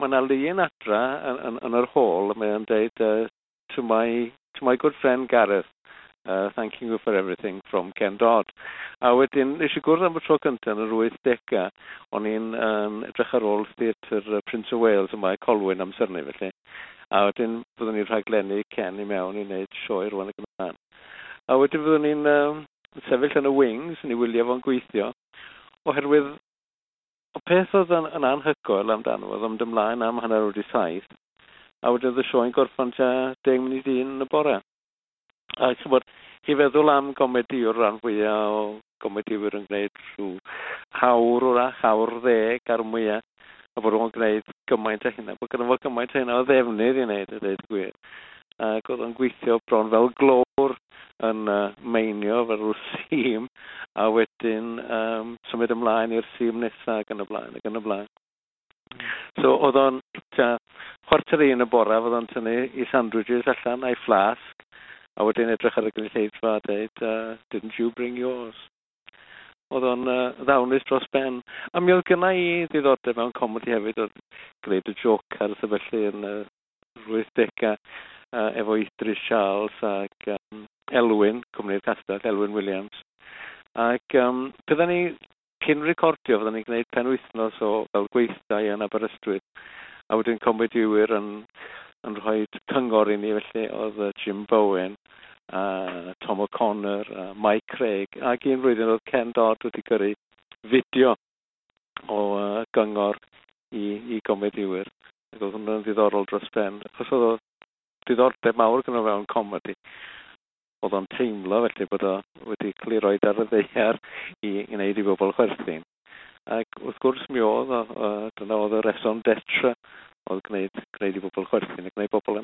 Mae yna lun adra yn yr hall, mae o'n deud, to my good friend Gareth, thanking you for everything from Ken Dodd." A wedyn, nes i gwrdd am y tro cyntaf yn yr 80au, o'n i'n edrych ar ôl Theatr Prince of Wales yma i Colwyn amser 'ny felly. A wedyn fyddwn ni'n rhaglennu Ken i mewn i wneud sioe rwan ac yn y blaen. A wedyn fyddwn ni'n sefyll yn y wings yn ei wylio fo'n gweithio, oherwydd y peth oedd yn anhygoel amdano oedd yn mynd ymlaen am 7:30, a wedyn oedd y sioe'n gorffan tua 1:50 yn y bore. A ch'mod, chi feddwl am gomediwr, rhan fwyaf o gomediwyr yn gwneud rhyw awr wrach, awr 10 ar mwyaf, a bod o'n gwneud gymaint o hynna, bod gynno fo gymaint o hynna o ddefnydd i wneud, a dweud y gwir. Ac oedd o'n gweithio bron fel glowr yn meinio fel rhyw seam, a wedyn symud ymlaen i'r seam nesaf ac yn y blaen, ac yn y blaen. So oedd o'n tua 12:45 y bore, oedd o'n tynnu i sandwiches allan a'i flasg, a wedyn edrych ar y gynulleidfa a dweud, "Didn't you bring yours?" Oedd o'n ddawnus dros ben. A mi oedd gynna i ddiddordeb mewn comedi hefyd, oedd gwneud y Jokers a felly yn 80au efo Idris Charles ac Elwyn, Cwmni'r Castell, Elwyn Williams. Ac bydden ni, cyn recordio, fydden ni'n gwneud penwythnos o fel gweithdai yn Aberystwyth. A wedyn comediwyr yn rhoi cyngor i ni, felly oedd Jim Bowen, a Tom O'Connor, a Mike Craig, ac un flwyddyn oedd Ken Dodd wedi gyrru fideo o gyngor i gomediwyr. Ac oedd hwnna'n ddiddorol dros ben. Achos oedd o diddordeb mawr gyda fewn comedi. Oedd o'n teimlo felly bod o wedi cael ei roed ar y ddaear i wneud i bobl chwerthin. Ac wrth gwrs mi oedd o, dyna oedd y raison d'etre, oedd gwneud i bobl chwerthin a gwneud bobl